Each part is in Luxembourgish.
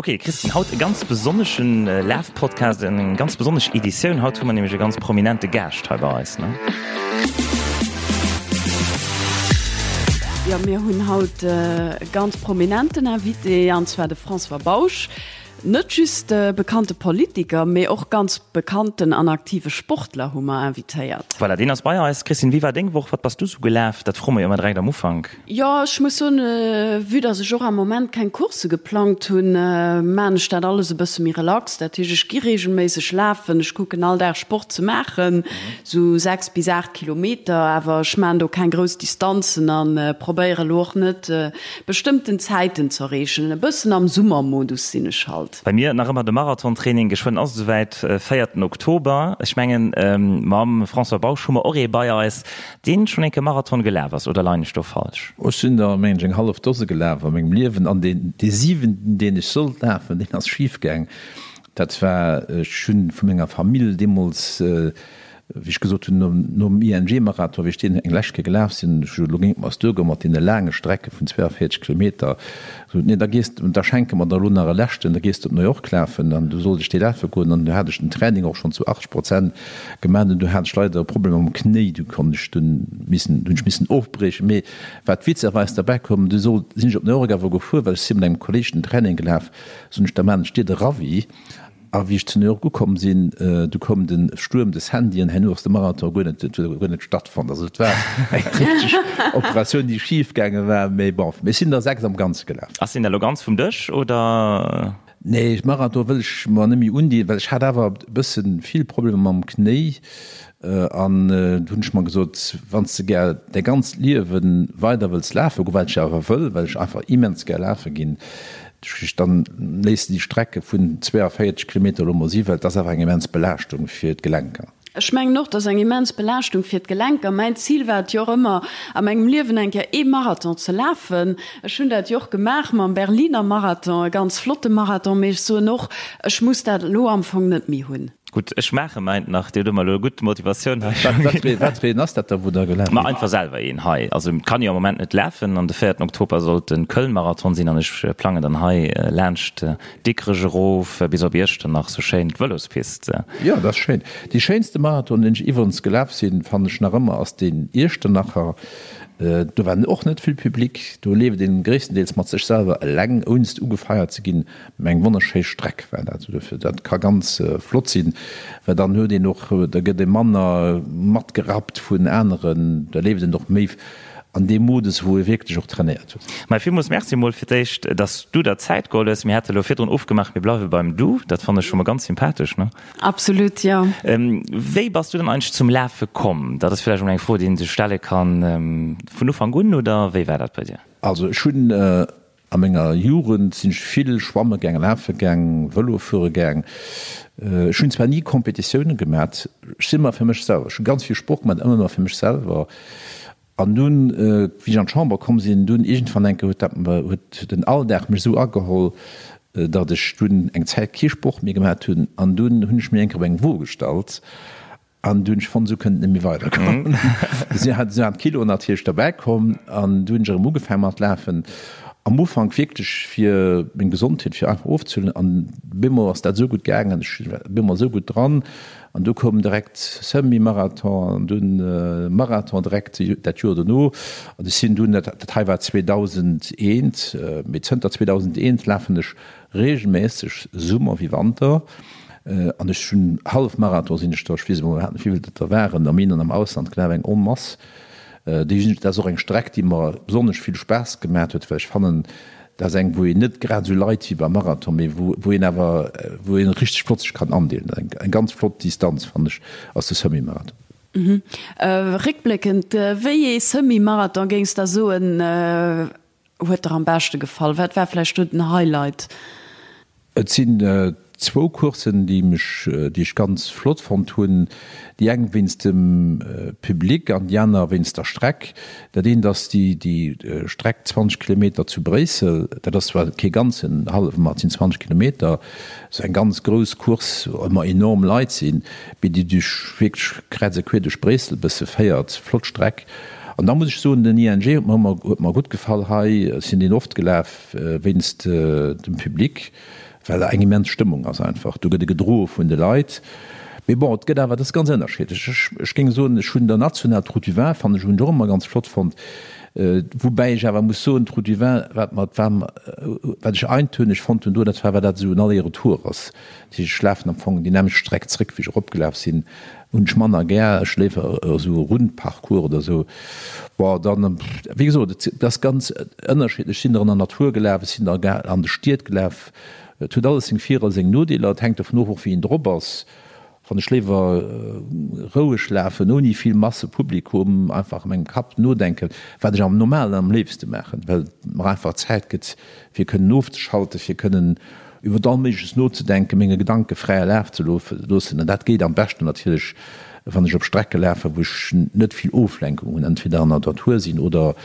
Ok Christine, haut e ganz besonneschen Lafpodcast, eng ganz besonnesch Editioun. Haut hu mer nämlech e ganz prominente Gaascht hei bei eis, ne? Jo, mir hunn haut e ganz prominenten Invité, an zwar de François Bausch. Net just e bekannte Politiker, mee och ganz bekannten an aktive Sportler hu mer invitéiert. Voilà, deen ass bei eis. Christine, wéi war deng Woch? Wat bass du sou gelaf? Dat froe mer jo ëmmer direkt am Ufank. Jo, ech muss soen, vue dass ech och am Moment keng Coursse geplangt hunn, maan ech dat alles e bësse méi relax. Dat heescht, ech gi regelméisseg lafen, ech kucken all Dag Sport ze maachen, sou 6 bis 8 Kilometer, awer ech maan do keng grouss Distanzen an probéiere lo och net bestëmmten Zäiten z'erreechen. E bëssen am Summermodus sinn ech halt. Bei mir nach ëmmer de Marathontraining, geschwënn ass et esouwäit, véierten Oktober. Ech mengen mam François Bausch hu mer och ee bei eis, Deen schon enke Marathon gelaf ass, oder leien ech do falsch? Ech sinn der mengen ech eng hallef Dose gelaf a mengem Liewen an deen dee siwenten deen ech sollt lafen deen ass schif gaang. Dat war, ech hunn vu menger Famill deemools wéi ech gesot hunn nom nom ING Marathon wéi ech deen eng lescht Kéier gelaf sinn, ech elo géing et mer duergoen mat deene laange Strecke vun 42 Kilometer, gesot nee da gees de, da schenke mer der elo nach e leschten, da gees de op New York lafen an du sollt ech dee lafe goen an du hat ech den Training och schonn zu 80 Prozent Gemaat an du hat ech leider e Problem mam Knéi, du konnt ech dunn missen, hunn ech missen ofbriechen. Mee wat witzerweis derbäi koum, du sollt, sinn ech op New York awer gefuer, well ech si mat engem Kolleg den Training gelaf, soen ech, da maan ech dir de Ravi. A wéi ech zu New York ukomm sinn, du koum de Stuerm, de Sandy, an herno ass de Marathon guer net, huet guer net stattfonnt. Also et war eng richteg Operatioun, déi schif gaange war. Mee bon, mir sinn der 6 am Ganze gelaf. Ass deen da lo ganz vum Dësch, oder? Nee, Marathon wëll ech mer net méi undinn, well ech hat awer e bëssen vill Problemer mam Knéi an du hunn ech mer gesot, wann s de gär däi ganzt Liewe weider wëlls lafe goen, wat ech awer wëll, well ech einfach immens gär lafe ginn, dann léiss de déi Strecke vun 42 Kilometer elo mol si, well et ass awer eng immens Belaaschtung fir d'Gelenker. Ech mengen och, et ass eng immens Belaaschtung fir d'Gelenker. Mäin Zil war et jo och ëmmer, a mengem Liewen eng Kéier ee Marathon ze lafen. Ech hunn dat jo och gemaach mam Berliner Marathon, e ganz flotte Marathon, mee ech soen och, ech muss dat elo am Fong net méi hunn. Gutt, ech maache mäint nach. Dir hutt ëmmer elo e gutt Motivatioun hei. Wat fir een ass dat da, wou Der gelaf Ma einfach selwer een hei. Also et kann jo am Moment net lafen an de véierten Oktober sollt de Köln-Marathon sinn an ech plangen dann hei laanscht Dikrech erof bis op Iechternach, sou schéin d'Vëlospist. Jo, dat ass schéin. Dee schéinste Marathon, deen ech iwwerens gelaf sinn, fannen ech nach ëmmer, ass deen Iechternacher. Do war och net vill Public, do leeft een gréisstendeels mat sech selwer eleng, ounst ugefeiert ze ginn. Mä eng wonnerschéi Streck war dat. Dofir, dat ka ganz flott sinn, well dann huet een och, da gëtt ee manner matgerappt vun aneren, da leeft een och méi an deem Modus, wou e wierklech och trainéiert huet. Mä villmools Merci emol fir d'éischt, dass du der Zäit geholl hues. Mir hate elo virdrun ofgemaach, mir bleiwe beim Du. Dat fannen ech scho mol ganz sympathesch, ne? Absolut, jo. Wéi bass du dann eigentlech zum Lafe komm? Dat ass vläicht emol eng Fro, déi een sech stelle kann. Vun Ufank un oder wéi war dat bei dir? Also ech hunn A menger Jugend sinn ech vill schwamme gaang, lafe gaang, Vëlo fuere gaang. Ech hunn zwar ni Competitioune gemat, ech sinn ëmmer fir mech selwer, ech hu ganz vill Sport gemat, ëmmer fir mech selwer. An dunn, wéi ech an d'Chamber komm sinn, dunn iergendwann eng Kéier huet dat, huet den Alldag mech esou ageholl, datt ech dunn eng Zäit kee Sport méi gemat hunn. An dunn hunn ech mir eng Kéier op eng Wo gestallt An du hunn ech fonnt, esou kënnt et net méi weidergoen. Esou hat esou an d'Kiloen natierlech derbäi komm an du hunn ech erëm ugefaang mat lafen. Am Ufank wierklech fir meng Gesondheet, fir einfach ofzehuelen an bemol ass dat esou gutt gaangen, ech war bemol esou gutt dran an du koum direkt Semi-Marathon an dunn Marathon direkt dat Joer dono an ech sinn dunn, dat hei war 2001, mee zënter 2001 lafen ech Regelméisseg, Summer wéi Wanter, an ech hunn Hallefmarathon sinn ech der, ech weess emol iwwerhaapt net wéivill dat der waren, am In an am Ausland gelaf, eng Onmass. Déi sinn, dat ass och eng Streck déi mer besonnesch vill Spaass gemat huet, well ech fannen, dat ass eng wou een net grad esou leit wéi beim Marathon, mee wou wou een awer wou een richteg flott sech kann andeelen. Eng eng ganz flott Distanz fannen ech ass de Semi-Marathon. Réckbléckend, wéi ee Semi-Marathon géings der soen huet der am beschte gefall? Wat war vläicht do den Highlight? Et sinn zwou Courssen, déi mech, déi ech ganz flott fonnt hunn. Déi eng wéinst dem Public an déi aner wéinst der Streck. Dat eent ass déi, déi Streck 20 Kilometer zu Bréissel. Dat ass zwar kee ganzen hallwe, ma et sinn 20 Kilometer. Esou eng ganz grouss Course, wou ëmmer enorm Leit sinn, mee déi duerch wierklech kräiz a queer duerch Bréissel e bësse féiert. Flott Streck. An da muss ech soen, den ING huet mer ëmmer, huet mer gutt gefall hei. Ech sinn deen oft gelaf wéinst dem Public, well eng immens Stëmmung ass einfach. Do gëtt e gedroe vun de Leit. Mee bon, et gëtt awer, dat ass ganz ënnerschiddlech. Ech, ech géing soen, ech hunn der national d'Route du Vin fannen ech, hunn ech och ëmmer ganz flott fonnt. Woubäi ech awer muss soen, d'Route du Vin, wat mer, wat mer, wat ech eintönig fonnt hunn do, dat war, well dat esou en Aller-Retour ass. Dat heescht, ech lafen am Fong déi nämmlecht Streck zréck, wéi ech eropgelaf sinn. Hunn ech manner gär, ech léiwer esou e Rundparcours oder esou. Bon, dann, wéi gesot, et ass ganz ënnerschiddlech. Ech sinn der an der Natur gelaf, ech sinn der an de Stied gelaf. Et huet alles seng Vir a seng Nodeeler. Et hänkt dovun of och wéi een drop ass. Wann ech léiwer roueg lafen, ouni vill Masse Publikum, einfach a mengem Kapp nodenken, wat ech am Normalen am léifste maachen, well et mer einfach Zäit gëtt fir kënnen ofzeschalten, fir kënnen iwwer all Méigleches nozedenken, menge Gedanke fräie Laf ze loossen. An dat geet am beschten natierlech, wann ech op Strecke lafen, wou ech net vill Oflenkung hunn, entweder an der Natur sinn oder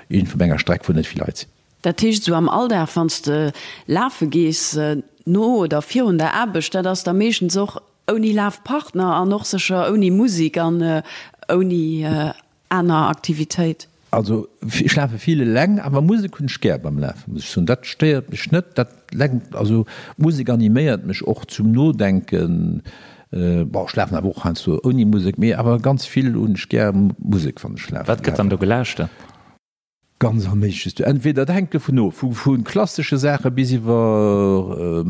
iergendwou op enger Streck, wou net vill Leit sinn. Dat heescht, esou am Alldag, wann s de lafe gees, no oder virun der Aarbecht, dat ass da meeschtens och ouni Lafpartner an och sécher ouni Musek an ouni aner Aktivitéit? Also ech lafe vill eleng, awer Musek hunn ech gär beim Lafen, muss ech soen. Dat stéiert mech net, dat lenkt, also Musek animéiert mech och zum Nodenken. Bon, ech lafen awer och heiansdo ouni Musek, mee awer ganz vill hunn ech gär Musek, wann ech lafen. Wat gëtt dann do gelauschtert? Ganz all Méigleches. Du, entweder, dat hänkt dovun of, vu vu klassesche Saache bis iwwer,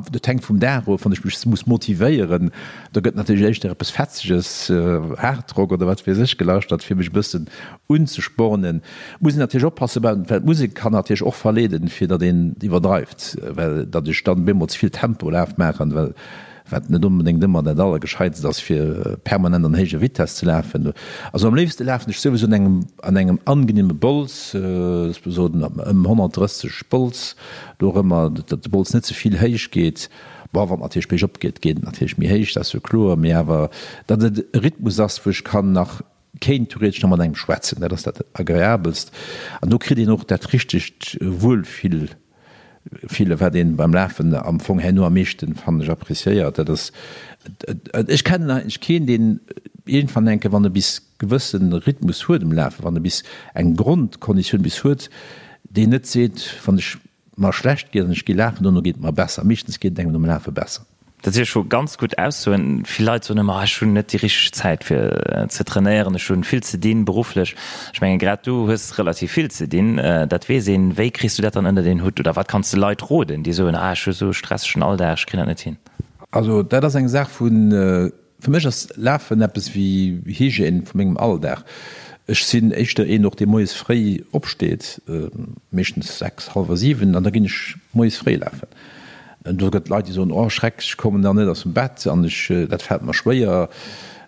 dat hänkt vum Dag of, wann ech mech muss motivéieren, da gëtt natierlech éischter eppes Fetzeges, Hardrock oder wat weess ech, gelauschtert, fir mech e bëssen unzespornen. Muss een natierlech oppassen, well d'Musek kann natierlech och verleeden, fir datt een iwwerdreift, well datt ech dann bemol ze vill Tempolaf maachen, well wat net onbedéngt ëmmer dat Allergescheitst ass, fir permanent an héijer Vitess ze lafen. Also am léifste lafen ech souwisou an engem, an engem angenehme Bols, soen ëm 130 Bols, do och ëmmer, datt de Bols net ze vill héich geet. Bon, wann et natierlech biergop geet, geet et natierlech méi héich, dat ass jo kloer, mee awer datt et e Rhythmus ass, wou ech kann nach, kéint theoretesch nach mat engem schwätzen, dat ass dat Agreabelst an do kritt een och dat richtegt Wuelfill. Fille wat een beim Lafen am Fong herno am meeschten, fannen ech, appréciéiert. Dat ass, ech kennen eigentlech keen, deen iergendwann enke, wann e bis gewëssen Rhythmus huet um Lafen, wann e bis eng Grondkonditioun bis huet, deen net seet, wann ech mer schlecht geet an ech gi lafen, dono geet et mer besser. Meeschtens geet et engem nom Lafe besser. Dat si scho ganz gutt Aussoen. Vill Leit soen ëmmer, ech hunn net déi richteg Zäit fir ze trainéieren, ech hunn vill ze dinn berufflech. Ech mengen, grad du hues relativ vill ze dinn, dat weess een. Wéi kriss du dat dann ënnert een Hutt oder wat kanns de Leit roden, déi soen, ah ech hu sou e stressegen Alldag, ech kréien dat net hin? Also dat ass eng Saach vun Fir mech ass Lafen eppes wéi Hygiène vu mengem Alldag. Ech sinn éischter een och dee moies fréi opsteet, meeschtens 6, hallwer 7, an da ginn ech moies fréi lafen. Do gëtt Leit déi soen, oh Schreck, ech kommen dann net aus dem Bett an ech, dat fält mer schwéier.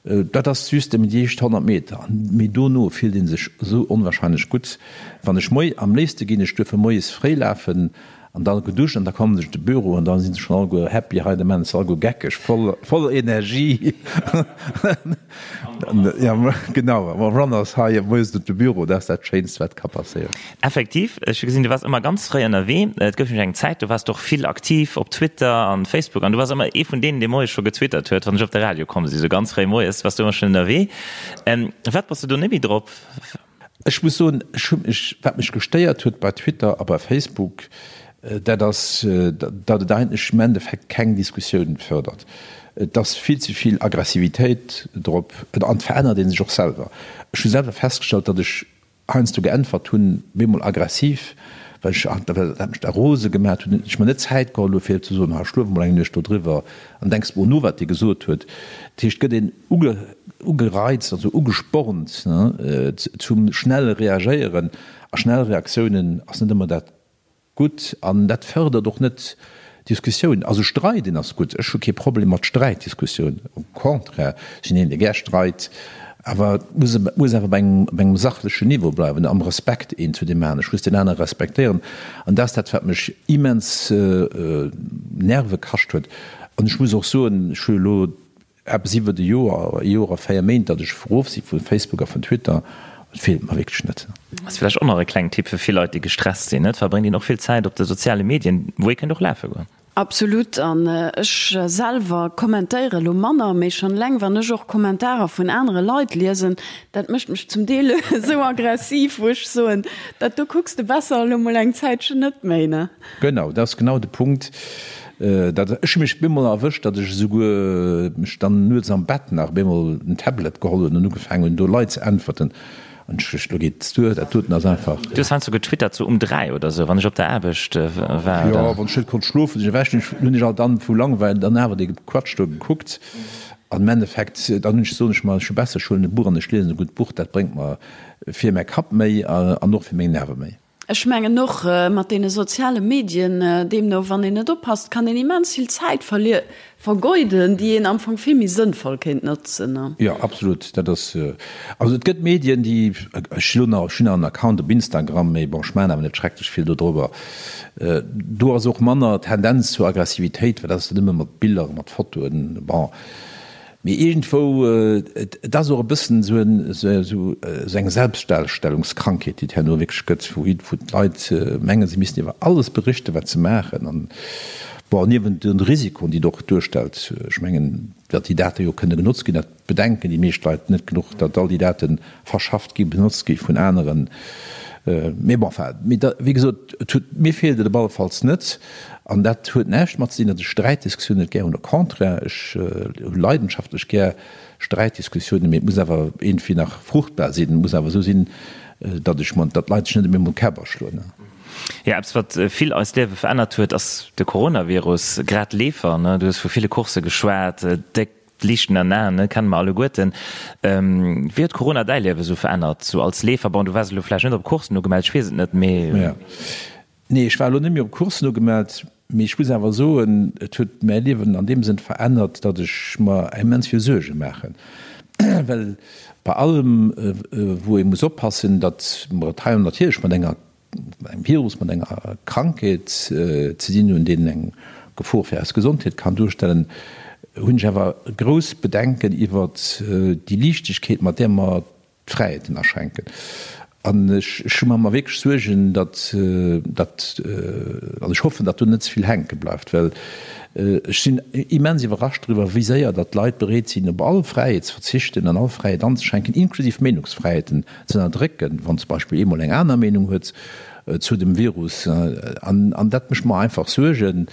Dat ass just nëmmen déi éischt 100 Meter, mee dono fillt ee sech esou onwahrscheinlech gutt. Wann ech moi, am léifste ginn ech duerfir moies fréi lafen, An da geduscht an da kommen se de Büro an da sinn se schon alleguer happy, hei de Menn ass alleguer geckeg, voll, voller Energie. Ja, genau, am Runners high moies op de Büro, dat ass dat Schéinst, wat ka passéieren. Effektiv, ech hu gesinn, du waars ëmmer ganz fréi ënnerwee. Et gouf nämlech eng Zäit, do waars de och vill aktiv op Twitter an Facebook an du waars ëmmer ee vun deenen, dee moies scho getwittert huet, wann ech op de Radio komm sinn. Sou ganz fréi moies waars du ëmmer schonn ënnerwee. Firwat bass du do net méi drop? Ech muss soen, ech hu mech, wat mech gestéiert huet bei Twitter a bei Facebook, dat ass, datt et eigentlech im Endeffekt keng Diskussioun fördert. Et ass vill ze vill Aggressivitéit drop an et verännert ee sech och selwer. Ech hu selwer festgestallt, datt ech heiansdo geäntwert hunn, bemol aggressiv, well ech, well dat mech da rose gemaat huet, ech mer net Zäit geholl hu fir ze soen, ha schlof emol eng Nuecht dodriwwer an denks mol no wat dee gesot huet. Dat heescht, et gëtt een ugereizt, also ugespornt zum schnelle Reagéieren. A schnell Reaktiounen ass net ëmmer dat Gutt. An dat fërdert och net Diskussioun. Also streiden ass gutt, ech hu kee Problem mat Sträitdiskussioun, au contraire, ech sinn een, dee gär streit, awer et muss, et muss awer bei engem, bei engem sachlechen Niveau bleiwen, am Respekt een zu deem aneren. Ech muss deen anere respektéieren. An dat ass dat, wat mech immens Nerve kascht huet. An ech muss och soen, ech hu elo Eppes iwwert e Joer, e Joer a 4 Méint, datt ech erof si vu Facebook a vun Twitter. Et feelt mer wierklech net. Ass vläicht och nach e klengen Tipp fir vill Leit, déi gestresst sinn, Et verbréngt een och vill Zäit op de soziale Medien, wou ee kéint och lafe goen. Absolut, an ech selwer kommentéiere lo manner, mee schonn eleng wann ech och Kommentarer vun anere Leit liesen, dat mécht mech zum Deel esou aggressiv, wou ech soen, dat do kucks de besser elo mol eng Zäitchen net méi, ne? Genau, dat ass genau de Punkt. Dat, ech hu mech bemol erwëscht, datt ech esouguer mech dann nuets am Bett nach bemol en Tablet geholl hunn an ugefaangen hunn, do Leit ze äntwerten. An ech duecht, lo geet et duer, dat doten ass einfach. Du hues heiansdo getwittert, sou um 3 oder sou, wann ech op der Aarbecht war, oder? Jo, wann ech net konnt schlofen, sinn ech ewech, hunn ech alt dann vu Langweil dann awer dee Quatsch do gekuckt. An am Endeffekt, dann hunn ech, soen ech mer, ech hu besser, ech huelen e Buch an ech liesen e gutt Buch, dat bréngt mer fir mäi Kapp méi an och fir meng Nerve méi. Ech mengen och mat deene soziale Medien, deemno wann een net oppasst, kann een immens vill Zäit vergeuden, déi een am Fong vill méi sënnvoll kéint notzen. Jo, absolut. Dat ass, also et gëtt Medien, déi, ech hu nach, ech hunn nach en Account op Instagram, mee bon, ech maachen awer net schrecklech vill dodrobber. Do ass och manner Tendenz zur Aggressivitéit, well dat ass dann ëmmer mat Biller, mat Fotoen, bon. Mee iergendwou, et ass och e bëssen esou eng Selbstdarstellungskrankheet, déi et herno wierklech gëtt, wou d'Leit mengen, se missten iwwer alles berichten, wat se maachen. An bon, niewent de Risikoen, déi et och duerstellt, ech mengen, datt déi Date jo kënne genotzt ginn, dat bedenken déi meescht Leit net genuch, datt all déi Date verschafft ginn, benotzt gi vun aneren. Mee bon, enfin, mee da, wéi gesot, et huet, mir feelt et op alle Falls net. An dat huet näischt mat ze dinn, datt ech Sträitdiskussiounen net gär hunn. Au contraire, ech hu leidenschaftlech gär Sträitdiskussiounen, mee et muss awer iergendwéi nach fruchtbar sinn. Et muss awer esou sinn, datt ech mer, datt d'Leit sech net op eemol d'Käpp aschloen. Jo, eppes wat vill eist Liewe verännert huet, ass de Coronavirus. Grad Leefer, ne, du hues vu ville Coursse geschwat, déck Liichten an Aen, ne, kenne mer alleguerten. Wéi huet Corona däi Liewe sou verännert, sou als Leefer? Bon, du waars elo vläicht net op Courssen ugemellt, ech weess et net, mee. Nee, ech war elo net méi op Coursen ugemellt, mee ech muss awer soen, et huet mäi Liewen an deem Sënn verännert, datt ech mer immens vill Suerge maachen, well bei allem, wou ee muss oppassen, datt mer et hei natierlech mat enger, mat engem Virus, mat enger Krankheet ze dinn hunn, deen eng Gefor fir eis Gesondheet kann duerstellen, hunn ech awer grouss Bedenken iwwert déi Liichtegkeet, mat där mer d'Fräiheeten aschränken. An ech, ech hu mer mer wierklech Suergen, datt, datt, an ech hoffen, datt do net ze vill hänke bleift, well ech sinn immens iwwerrascht driwwer, wéi séier datt d'Leit bereet sinn, op all Fräiheet ze verzichten an all Fräiheet anzeschränken, inklusiv Meenungsfräiheeten ze ënnerdrécken, wann zum Beispill ee mol eng aner Meenung huet zu dem Virus. An, an dat mécht mer einfach Suergen.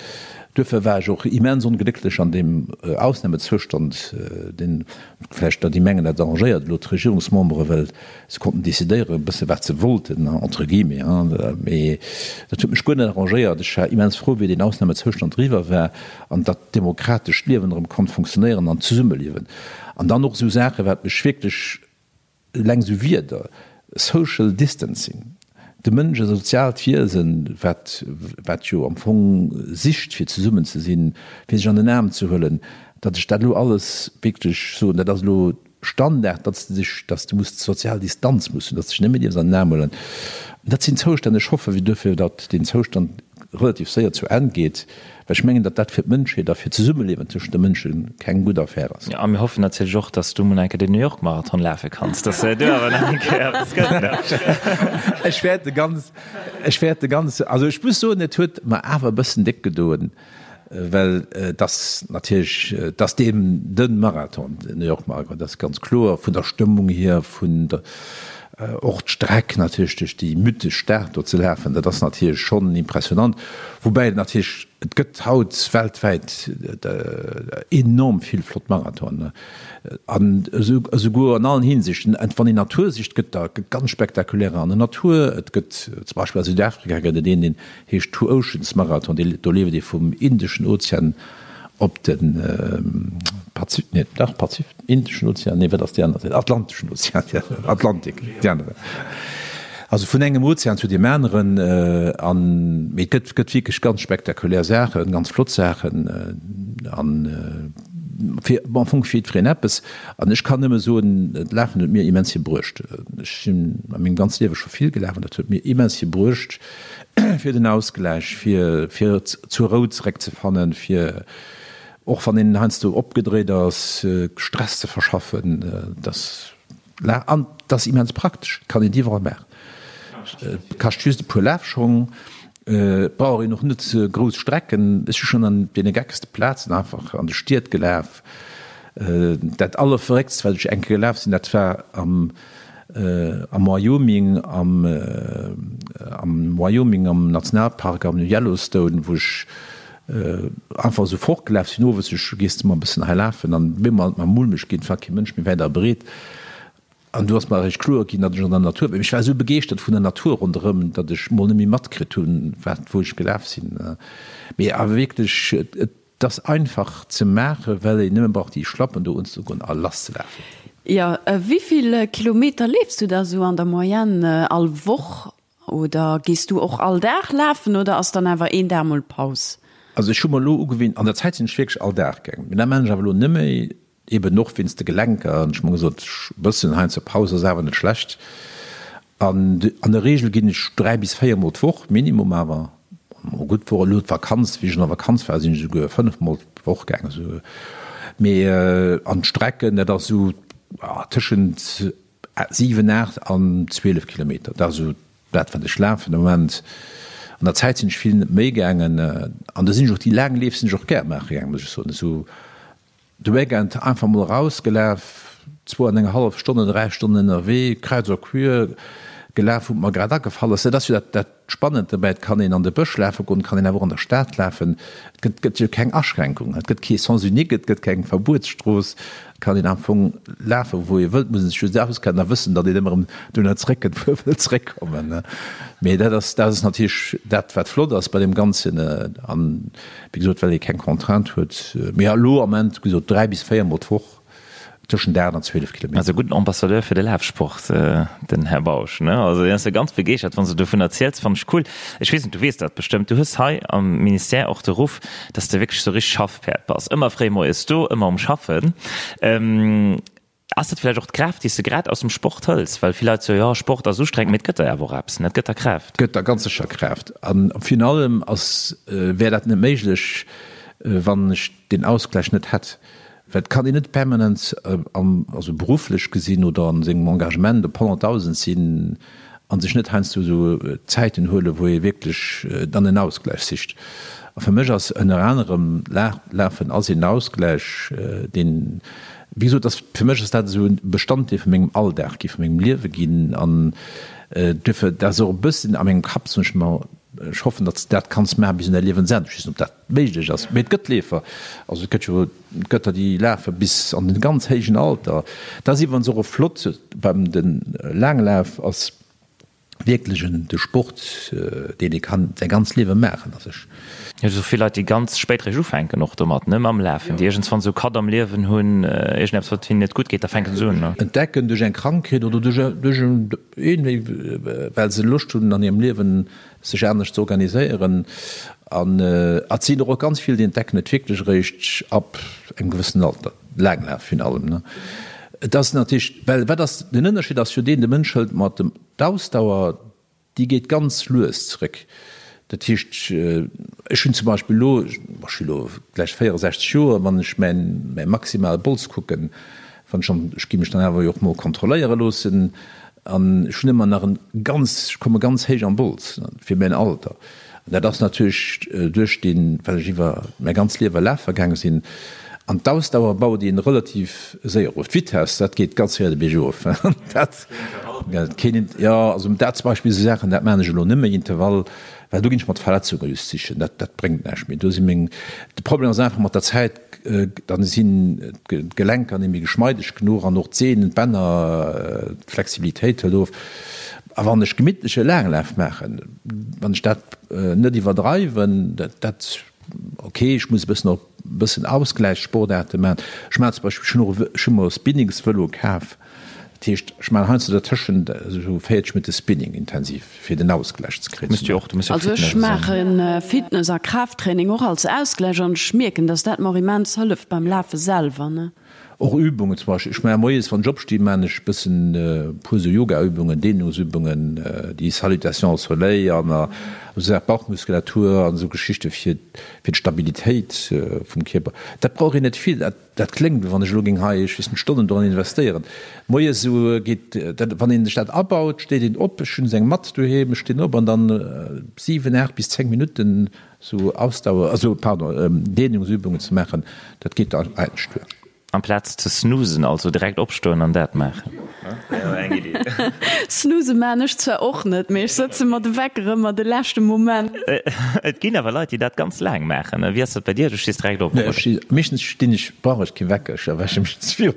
Duerfir war ech och immens onglécklech an deem Ausnahmezoustand, deen, Vläicht datt déi mengen, dat arrangéiert elo d'Regierungsmembere, well se konnten decidéieren e bësse wat se wollten, entre guillemets, hein. Mee dat huet mech guer net arrangéiert. Ech war immens frou, wéi deen Ausnahmezoustand eriwwer war an datt d'demokratescht Liewen erëm konnt funktionéieren an d'Zesummeliewen. An dann och esou Saachen, wat mech wierklech, Eleng esou Wierder, Social Distancing, de Mënsch e soziaalt Wiesen, wat wat jo am Fong sicht fir zesummen ze sinn, fir sech an den Aarm ze huelen, datt ech dat elo alles wierklech soen, dat ass elo Standard, datt s de dech, datt s de muss sozial Distanz muss hunn, datt s de dech net méi dierfs an den Aarm huelen. Dat sinn Zoustänn, ech hoffe duerfir, datt deen Zoustand relativ séier zu Enn geet, well ech mengen, datt dat fir d'Mënschheet a fir d'Zesummeliewen tëschent de Mënsche keng gutt Affär ass. Jo, a mir hoffen natierlech och, datt s du mol eng Kéier den New York Marathon lafe kanns, datt du awer nach eng Kéier eppes gëtt, ne? Ech wäert de ganz, ech wäert de ganz, also ech muss soen, et huet mer awer e bëssen déck gedoen, well et ass natierlech, et ass deem de Marathon, den New York Marathon, dat ass ganz kloer, vun der Stëmmung hier, vun der, Och d'Streck natierlech duerch déi mythesch Stad do ze lafen, dat ass natierlech schonn impressionant. Woubäi et natierlech, et gëtt haut weltwäit enorm vill flott Marathonen an esouguer an allen Hinsichten. Wann een Natur sicht, gëtt der ganz spektakulärer an der Natur. Et gëtt zum Beispill a Südafrika gëtt et een, deen heescht Two Oceans Marathon, do leeft ee vum Indeschen Ozean op de Pazif, nee, dach Pazif, Indeschen Ozean, nee, wat ass déi aner Säit? Atlanteschen Ozean, ja, Atlantik, déi aner Säit. Also vun engem Ozean zu deem aneren. An, mee et gëtt, gëtt wierklech ganz spektakulär Saachen, ganz flott Saachen an fir, am Fong fir jiddwereen eppes. An ech kann nëmme soen, d'Lafen huet mir immens vill bruecht. Ech sinn a mengem ganze Liewe scho vill gelaf an dat huet mir immens vill bruecht. fir den Ausgläich, fir fir zur Rou zeréckzefannen, fir och wann een heiansdo opgedréit ass, Stress ze verschaffen. Dass an et ass immens praktesch, et kann een et iwwerall maachen. Et kascht just e puer Lafschong. Et brauch een och net grouss Strecken. Ech si schonn an deene geckste Plazen einfach an de Stied gelaf. Dat allerverrécktst, wat ech eng Kéier gelaf sinn, dat war am am Wyoming, am am Wyoming am Nationalpark am Yellowstone, wou ech einfach esou fortgelaf sinn owes. Ech gees de mol e bëssen hei lafen an op eemol hat et mer mulmeg ginn, et war kee Mënsch méi wäit a breet. An du ass mer eréischt kloer ginn, datt ech an der Natur war. Ech war esou begeeschtert vun der Natur ronderëm, datt ech mol net méi matkritt hunn, wat, wou ech gelaf sinn. Mee awer wierklech, et ass einfach ze maachen, well een nëmme brauch déi Schlappen do unzegoen a lasszelafen. Jo, wéi vill Kilometer leefs du da sou an der Moyenne all Woch? Oder gees du och all Dag lafen oder ass dann awer een Dag mol Paus? Also ech hu mer elo ugewinnt, an der Zäit sinn ech wierklech all Dag gaangen, mee dat maachen ech awer elo net méi. Eben och wéinst de Gelenker. An ech hu mer gesot, e bëssen heiansdo Paus ass awer net schlecht. An an der Reegel ginn ech 3 bis 4 Mol d'Woch, Minimum awer. Mol gutt wor elo d'Vakanz, wéi ech an der Vakanz war, sinn ech esouguer 5 Mol d'Woch gaangen. Esou. Mee an d'Strecken, dat ass esou tëschent 7, 8 an 12 Kilometer. Dat ass esou dat, wat ech lafen de Moment. An der Zäit sinn ech vill méi gaangen. An do sinn ech och déi laang Leef sinn ech och gär maache gaangen, muss ech soen. Esou De Weekend einfach mol erausgelaf, zwou an eng hallef Stonnen, 3 Stonnen ënnerwee, kreuz a quer gelaf, wou et mer grad agefall ass. Dat ass jo dat dat Spannend dobäi, et kann een an de Bësch lafe goen, et kann een awer och an der Stad lafen. Et gëtt gëtt jo keng Aschränkung, et gëtt kee Sens unique, et gëtt keng Verbuetsstrooss. Et kann een am Fong lafen, wou ee wëllt, muss een sech just auskennen a wëssen, datt een ëmmer erëm dohinner zeréckkënnt, wou ee wëllt zeréckkommen. Mee dat ass dat ass natierlech dat, wat flott ass bei deem Ganzen. An Wéi gesot, well ee keng Contrainte huet. Mee elo am Ament, wéi gesot, 3 bis 4 mol d'Woch, tëschent 8 an 12 Kilometer. Also e gudden Ambassadeur fir de Lafsport, den Här Bausch, ne? Also hien ass jo ganz begeeschtert, wann s de dovun erziels. Fannen ech cool. Ech weess net, du weess dat bestëmmt, du hues hei am Ministère och de Ruff, dass de wierklech sou richteg Schaffpäerd bass. Ëmmer fréi moies do, ëmmer um Schaffen. Ass dat vläicht och d'Kraaft, déi s de grad aus dem Sport hëls? Well vill Leit soe jo, Sport ass ustrengend, mee et gëtt der awer och eppes, ne? Et gëtt der Kraaft. Gëtt der ganz sécher Kraaft. A virun allem ass, wär dat net méiglech, wann ech deen Ausgläich net hätt. Well et kann een net permanent am, also berufflech gesinn oder an sengem Engagement op 100.000 sinn a sech net heiansdo esou Zäiten huelen, wou ee wierklech dann en Ausgläich sicht. A fir mech ass ënner anerem Lafen ass een Ausgläich, deen, Wéi gesot, ass fir mech ass dat esou e Bestanddeel vu mengem Alldag gi, vu mengem Liewe ginn an duerfir, dat ass och e bëssen a mengem Kapp, soen ech mer, ech hoffen, datt s de dat kanns maache bis un däi Liewensenn. Ech weess net, ob dat méiglech ass, mee et gëtt Leefer, also et gëtt jo, et gëtt der, déi lafe bis an den ganz héijen Alter. Dat ass iwwerens och e flott beim de Laanglaf ass, wierklech en de Sport deen ee kann säi ganzt Liewe maachen a sech. Jo, esou vill Leit déi ganz spéit réischt ufänken och domat, ne, mam Lafen, déi iergendswann esou Cut am Liewen hunn, iergendeppes wat hinnen net gutt geet, da fänken se un, ne. Entdecken duerch eng Krankheet oder duerch duerch een well se Loscht hunn an hirem Liewen sech anescht ze organiséieren an et sinn der och ganz vill déi entdecken et wierklech eréischt ab engem gewëssenen Alter, Laanglaf virun allem ne. Et ass natierlech, well wat ass den Ënnerscheed ass jo deen, de Mënsch hëlt mat dem d'Ausdauer déi geet ganz lues zréck. Dat heescht ech hunn zum Beispill elo, ech hu elo gläich 64 Joer, wann ech mäin mäi maximale Bols kucken, wann ech an ech gi mech dann awer jo och mol kontrolléiere loossen, An ech hunn ëmmer nach en ganz, ech komme ganz héich am Bols fir mäin Alter. An dat ass natierlech duerch deen, well ech iwwer mäi ganz Liewe lafe gaange sinn. An d'Ausdauer baut een relativ séier of. D'Vitess, dat geet ganz séier de Bierg erof. Dat, keen, jo, also dat zum Beispill sou Saachen, dat maachen ech elo net méi, Intervall, well do ginn ech mer d'Verletzunge just sichen. Dat, dat bréngt näischt méi. Do si meng, de Problem ass einfach mat der Zäit, Dann sinn d'Gelenker net méi geschmeideg genuch an och d'Sehnen, d'Bänner, d'Flexibilitéit hëlt of. A wann ech gemittleche Laanglaf maachen, wann ech dat net iwwerdreiwen, dat, ok, ech muss e bëssen och e bëssen Ausgläichssportaarte maachen. Ech maachen zum Beispill, ech hunn och e, ech hu mer e Spinningsvëlo kaf. Dat heescht, ech maachen heiansdo dertëschent esou 40 Minutte Spinning intensiv, fir den Ausgläich ze kréien. Muss jo och, du muss jo Also ech maache Fitness a Kraafttraining och als Ausgläich an ech mierken, dass dat mer och immens hëlleft beim Lafe selwer, ne. Och Übungen zum Beispill, ech maache moies wann ech opstinn, maachen ech e bëssen e puer sou Yogaübungen, Dehnungsübungen, déi Salutation au soleil an esou Saachen, Bauchmuskulatur an esou Geschichte fir fir d'Stabilitéit vum Kierper. Dat brauch een net vill, dat dat kléngt wéi wann ech elo géing hei, ech weess net, Stonnen doran investéieren. Moies esou geet dat, wann een sech dat abaut, steet een op, ech hunn esou eng Matt doheem, ech stinn op an dann 7, 8 bis 10 Minutten Sou Ausdauer, also pardon, Dehnungsübungen ze maachen, dat geet da eigentlech duer. Amplaz ze snoozen, also direkt opstoen an dat maachen. Eng Iddi. Snooze maan ech zwar och net, mee ech sëtze mer de Wecker ëmmer de leschte Moment. Et ginn awer Leit, déi dat ganz laang maachen. Wéi ass dat bei dir? Du stees direkt op, oder? Nee, meeschtens stinn ech, brauch ech kee Wecker, ech erwäche mech ze viru.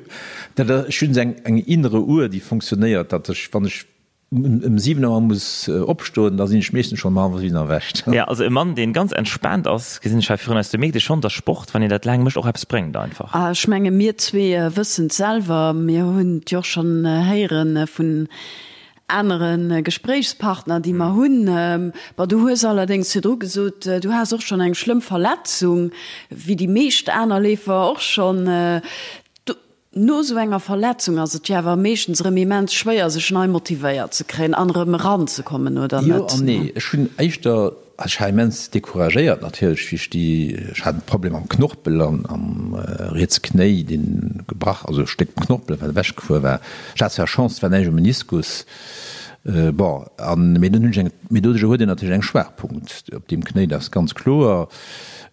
Dat, ech hunn esou eng innere Uhr, déi funktionéiert, datt ech, wann ech Ëm 7 Auer muss opstoen, da sinn ech meeschtens schonn ëm hallwer 7 erwächt. Jo, also e Mann, deen ganz entspaant ass, gesinn ech hei virun eis. Do mierkt ee schonn, dass Sport, wann een dat laang mécht, och eppes bréngt einfach. A ech menge mir zwee wëssen et selwer, mir hunn et jo och schonn héiere vun anere Gespréichspartner, déi mer hunn. Bon, du hues allerdéngs virdru gesot, du has och schonn eng schlëmm Verletzung, wéi déi meescht aner Leefer och schonn. No esou enger Verletzung ass et jo awer meeschtens erëm immens schwéier, sech nei motivéiert ze kréien an erëm eranzekommen, oder net? Jo an nee. Ech hunn éischter, also ech war immens decouragéiert natierlech, wéi ech déi, ech hat e Problem am Knorpel an am rietse Knéi, dee gebrach, also e Stéck Knorpel, wat ewechgefuer war. Ech hat zwar Chance, et war näischt um Meniskus. Bon, an, mee dunn hunn ech eng, mee doduercher huet een natierlech eng Schwaachpunkt op deem Knéi, dat ass ganz kloer.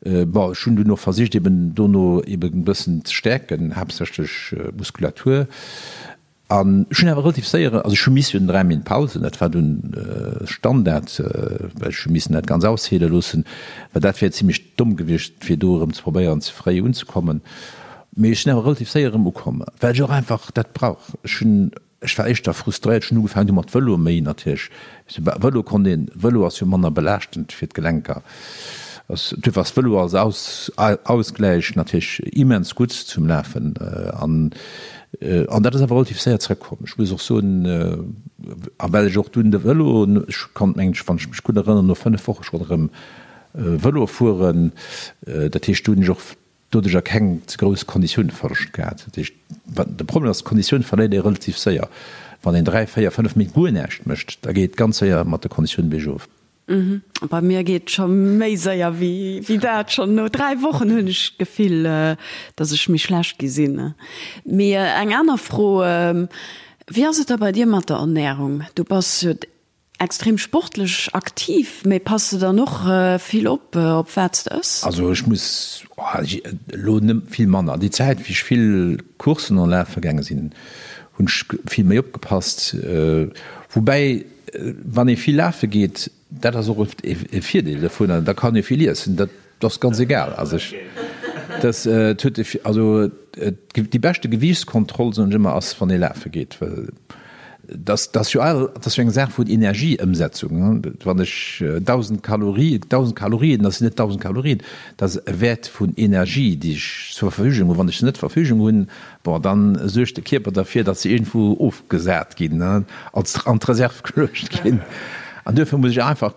Bon, ech hunn dunn och versicht eben dono eben e bëssen ze stäerken, haaptsächlech Muskulatur. An ech hunn awer relativ séier, also ech hu missen 3 Méint Pausen, dat war dunn Standard, well ech hu missen dat ganz ausheele loossen, well dat wär zimlech domm gewiescht fir do erëm ze probéieren ze fréi unzekommen. Mee ech sinn awer relativ séier erëm ukomm, well ech och einfach dat brauch. Ech hunn Ech war éischter frustréiert. Ech hunn ugefaangen du mat Vëlo méi natierlech. Vëlo konnt een, Vëlo ass jo manner belaaschtend fir d'Gelenker. Duerfir ass Vëlo als Ausgläich natierlech immens gutt zum Lafen. An an dat ass awer relativ séier zrëckkomm. Ech muss och soen, a well ech och dunn de Vëlo, ech konnt mengen ech, wann ech mech gutt erënneren, no 5 Woche schonn erëm Vëlo fueren. Dat heescht, do hunn ech och doduercher keng ze grouss Konditiounverloscht gehat. Dat heescht, wat de Problem ass, d'Konditioun verléiert ee relativ séier. Wann een 3, 4, 5 Méint guer näischt mécht, da geet et ganz séier mat der Konditioun biergof. Bei mir geet et scho méi séier wéi dat. Schonn no 3 Wochen hunn ech d'Gefill, datt ech méi schlecht gi sinn. Mee eng aner Fro, Wéi ass et da bei dir mat der Ernärung? Du bass jo Extrem sportlech aktiv, mee pass de dann och vill op, op wat s de ëss? Also ech muss elo net vill manner. Déi Zäit wéi ech vill Courssen an lafe gaange sinn, hunn ech vill méi opgepasst. Woubäi wann ee vill lafe geet, dat ass och e Virdeel dovunner, da kann ee vill iessen. Dat ass ganz egal. Also ech, dat huet also déi beschte Gewiichtskontroll soen ech ëmmer ass wann ee lafe geet, well Dat ass jo all, dat ass jo eng Saach vun Energieëmsetzung. Wann ech 1.000 Kalorie, 1.000 Kalorien, dat sinn net 1.000 Kalorien, dat ass e Wäert vun Energie, déi ech zur Verfügung hunn. Wann ech se net zur Verfügung hunn, bon, da suergt de Kierper derfir, datt se iergendwou ofgesat ginn, als an d'Reserv geluecht ginn. An duerfir muss ech einfach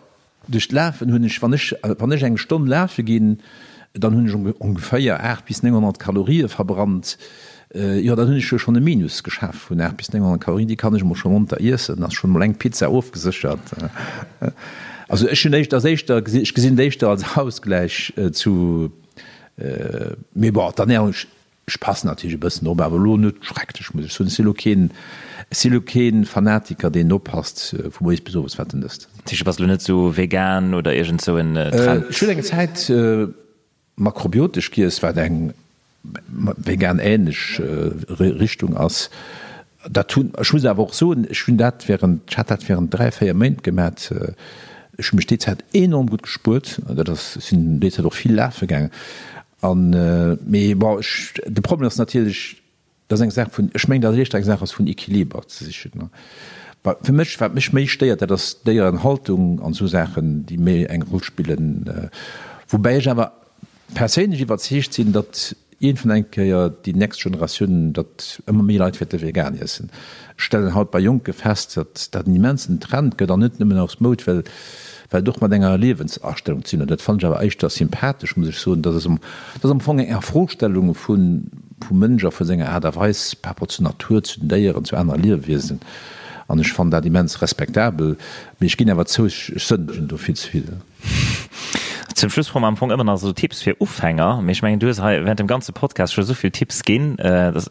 Duerch d'Lafen hunn ech, wann ech, wann ech eng Stonn lafe ginn, dann hunn ech ongeféier 8 bis 900 Kalorie verbrannt. Jo, dann hunn ech jo schonn e Minus geschaf vun 8 bis 900 Kalorien. Déi kann ech emol scho monter iessen, ass schonn emol eng Pizza ofgeséchert. Also ech hunn éischter, ass éischter, ech gesinn et éischter als Ausgläich zu, mee bon, d'Ernährung, Ech passen natierlech e bëssen op, awer elo net schrecklech, muss ech soen. Ech si elo keen, ech si elo keen Fanatiker, deen oppasst vu moies bis owes, wat en ësst. Dat heescht, du bass elo net esou vegan oder iergend esou en Trend? Ech hunn eng Zäit makrobiotesch giess, wat eng vegan-ähnlech Richtung ass. Dat hunn, ech muss awer och soen, ech hunn dat während, ech hat dat während 3, 4 Méint gemat. Ech hu mech déi Zäit enorm gutt gespuert. Dat ass, ech sinn déi Zäit och vill lafe gaangen. An, mee bon, ech, de Problem ass natierlech, dat ass eng Saach vun, ech mengen, datt et éischter eng Saach ass vun Equiliber ze sichen. Bah, fir mech, wat mech méi stéiert, dat ass d'Déierenhaltung an esou Saachen, déi méi eng Roll spillen. Woubäi ech awer perséinlech iwwerzeegt sinn, datt iergendwann eng Kéier déi nächst Generatioun, datt ëmmer méi Leit wäerte vegan iessen. Ech stellen haut bei Jonke fest, datt dat en immensen Trend gëtt an net nëmmen aus Moud, well well et och mat enger Liewensastellung ze dinn huet. Dat fannen ech awer éischter sympathesch, muss ech soen. Dat ass am, dat ass am Fong eng Afrostellung vu. vum Mënsch a vu senger Aart a Weis par rapport zur Natur, zu den Déieren, zu anere Liewewiesen. An ech fannen dat immens respektabel. Mee ech ginn awer zou, ech sënnegen do vill ze vill. Zum Schluss froe mer am Fong ëmmer nach esou Tipps fir Ufänger. Mee ech mengen, du hues hei während dem ganze Podcast scho esou vill Tipps ginn. Dat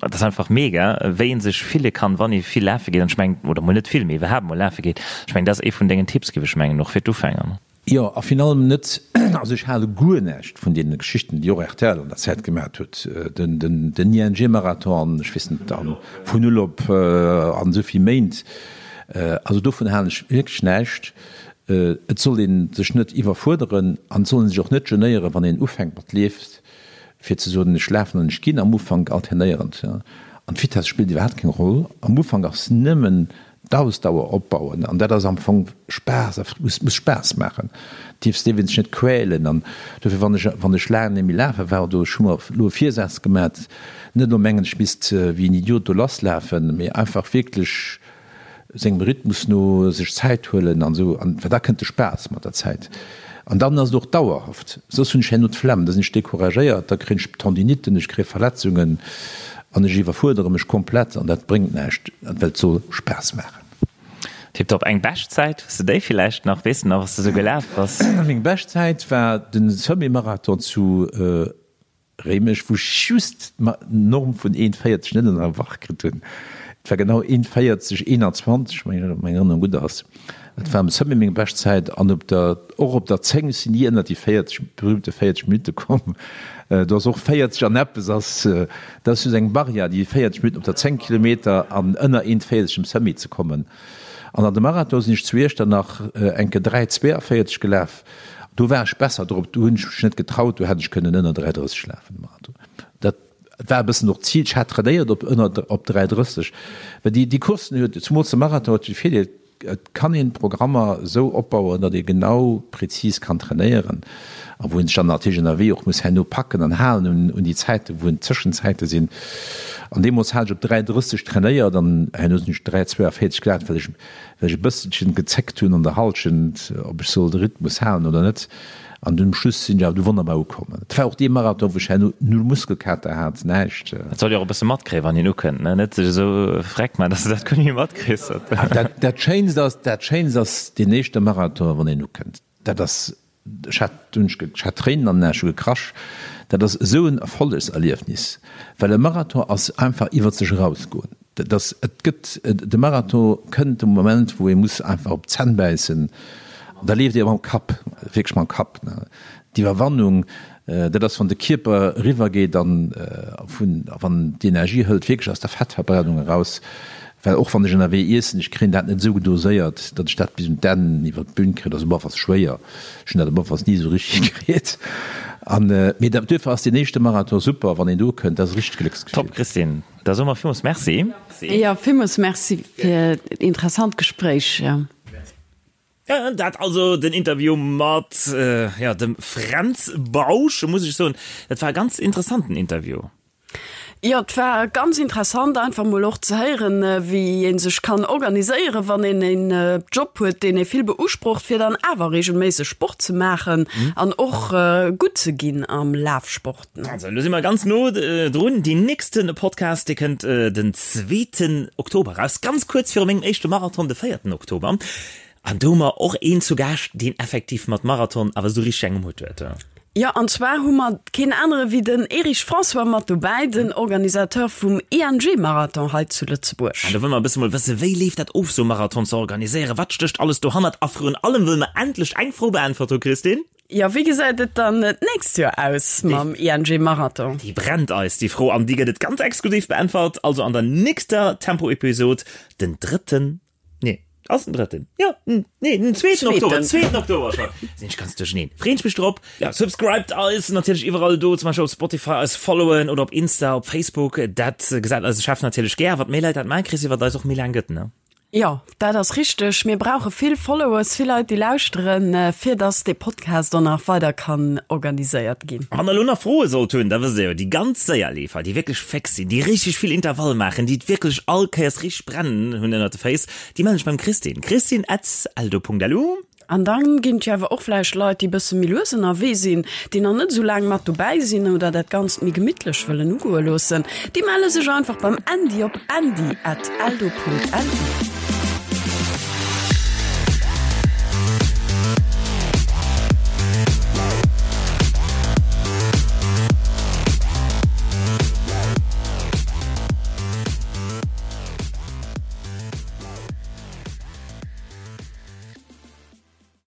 ass einfach mega, wéi ee sech fille kann, wann ee vill lafe geet. An ech mengen, oder mol net vill, mee iwwerhaapt mol lafe geet. Ech mengen, dat ass ee vun dengen Tipps, géif ech mengen, och fir d'Ufänger. Jo, a virun allem net, also ech hale guer näischt vun deene Geschichten, déi och rtl an der Zäit gemat huet, den ING-Marathon an ech weess net, a vun null op an esou vill Méint. Also dovun halen ech wierklech näischt. Et soll ee sech net iwwerfuerderen an et soll ee sech och net genéieren, wann een ufänkt mat leeft, fir ze soen, ech lafen an ech ginn am Ufank alternéierend. An d'Vitess spillt iwwerhaapt keng Roll. Am Ufank ass nëmmen d'Ausdauer opbauen an dat ass am Fong Spaass a muss muss Spaass maachen. Dierfs dierf een sech net quälen an dofir wann ech wann ech laang net méi lafe war oder ech hu mer elo e Virsaz gemat, net elo mengen ech misst wéi en Idiot do lass lafen, mee einfach wierklech sengem Rhythmus no sech Zäit huelen an esou an well da kënnt de Spaass mat der Zäit an dann ass et och dauerhaft. Soss hunn ech herno d'Flemm, da sinn ech decouragéiert, da kréien ech Tendinitten, ech kréie Verletzungen an ech iwwerfuerdere mech komplett an dat bréngt näischt, well et soll Spaass maachen. Tiptop. Eng Beschtzäit, hues de déi villäicht nach? Weess de nach, was de sou gelaf bass? Meng Beschtzäit war de Semi-Marathon zu Réimech, wou ech just d'Norm vun 1,40 net ënnerwach kritt hunn. Et war genau 1,40 21, wann meng Erënnerung gutt ass. Dat war am Semi meng Beschtzäit an op der, och op der 10, ech sinn ni ënner déi 40, berühmte 40 Minutte komm. Do ass och 40 an eppes ass, dat ass just eng Barrière, déi 40 Minutten op der 10 Kilometer an ënner 1,40 um Semi ze kommen. An an de Marathon sinn ech zu Iechternach enke 3,42 gelaf. Do war ech besser drop, do hunn ech mech net getraut, do hätt ech kënnen ënner 3,30 lafen de Marathon. Dat war e bëssen och d'Zil, ech hat trainéiert op ënner op 3,30, well déi déi Courssen huet, zumools de Marathon huet de Virdeel, et kann een d'Programmer esou opbauen, datt ee genau prezis kann trainéieren a wou een sech dann natierlech ënnerwee och muss herno packen an halen un un déi Zäiten, wou en d'Zëschenzäite sinn. An deemools hat ech op 3,30 trainéiert an herno sinn ech 3,42 gelaf, well ech well ech e bësselchen gezéckt hunn an der Halschent, ob ech soll de Rhythmus halen oder net. An dunn um Schluss sinn ech awer du wonnerbar ukomm. Et war och dee Marathon, wou ech herno null Muskelkater hat, näischt. Et soll jo och e bësse matkréien, wann een ukënnt, ne? Net sech esou freck man, dass de dat guer net méi matkriss. Dat, dat Schéinst ass, dat Schéinst ass deen éischte Marathon, wann een ukënnt. Dat ass Ech hat dunn, ech hat Tréinen an den Aen, ech hu gekrasch. Dat ass esou en Erfollegserliefnis, well e Marathon ass einfach iwwer sech erausgoen. Dat ass, et gëtt, de Marathon kënnt de Moment, wou ee muss einfach op d'Zänn bäissen. Da leeft ee mam Kapp, wierklech mam Kapp. D'Iwwerwannung, dat ass, wann de Kierper eriwwer geet an vun, wann d'Energie hëlt wierklech aus der Fettverbrennung eraus. Well och wann ech ënnerwee iessen, ech kréien dat net esou doséiert, datt ech dat bis un d'Enn iwwer d'Bün kréien. Dat ass op alle Falls schwéier. Ech hunn dat op alle Falls ni esou richteg kritt. An, mee dat, duerfir ass deen éischte Marathon super, wann een do kënnt. Dat ass e richtegt Glécksgefill. Top, Christine. Da soe mer villmools Merci. Jo, villmools Merci fir d'interessant Gespréich. Dat also den Interview mat, jo, dem Fränz Bausch. Muss ech soen, dat war e ganz interessanten Interview. Jo, et war ganz interessant einfach mol och ze héieren, wéi ee sech kann organiséieren, wann een een Job huet, deen ee vill beusprocht, fir dann awer reegelméisseg Sport ze maachen an och gutt ze ginn am Lafsport. Also, elo si mer ganz no drun. Deen nächste Podcast, dee kënnt den zweeten Oktober eraus, ganz kuerz viru mengem éischte Marathon, de véierten Oktober. An do hu mer och een zu Gaascht, deen effektiv mat Marathon awer esou richteg eng um Hutt huet. Jo, an zwar hu mer keen anere wéi den Erich François mat dobäi, den Organisateur vum ING-Marathon hei zu Lëtzebuerg. An do wëlle mer e bësse mol wësse, wéi leeft dat of, sou e Marathon ze organiséieren, wat stécht alles dohannert a vrun allem wëlle mer endlech eng Fro beäntwert hu, Christine. Jo, wéi gesäit et dann d'nächst Joer aus mam ING-Marathon? Déi brennt eis, déi Fro, an déi gëtt et ganz exklusiv beäntwert, also an der nächster Tempo-Episod, den drëtten Nee, ass den drëtten. Jo, nee, den zweeten Oktober. Zweeten Oktober schon. Sinn ech ganz duercheneen. Freen ech mech drop. Ja, subscribed eis natierlech iwwerall do, zum Beispill op Spotify eis followen oder op Insta, op Facebook. Dat gesäit eise Chef natierlech gär. Wat méi Leit dat maachen, Chrissy, wat eis och méi laang gëtt, ne? Jo, dat ass richteg. Mir brauche vill Followers, vill Leit, déi lauschteren, fir dass dee Podcast och nach weider kann organiséiert ginn. Wann der elo nach Froe sollt hunn, da wësst der jo, déi ganz séier Leefer, déi wierklech féx sinn, déi richteg vill Intervall maachen, déi et wierklech all Kéiers richteg brennen hunn ënnert de Féiss, déi mellen sech beim Christine, christine at eldo Punkt lu. An dann ginn et jo awer och vläicht Leit, déi bësse méi lues ënnerwee sinn, déi nach net esou laang mat dobäi sinn oder dat Ganzt méi gemittlech wëllen ugoe loossen. Déi melle sech einfach beim Andy op andy at eldo Punkt lu.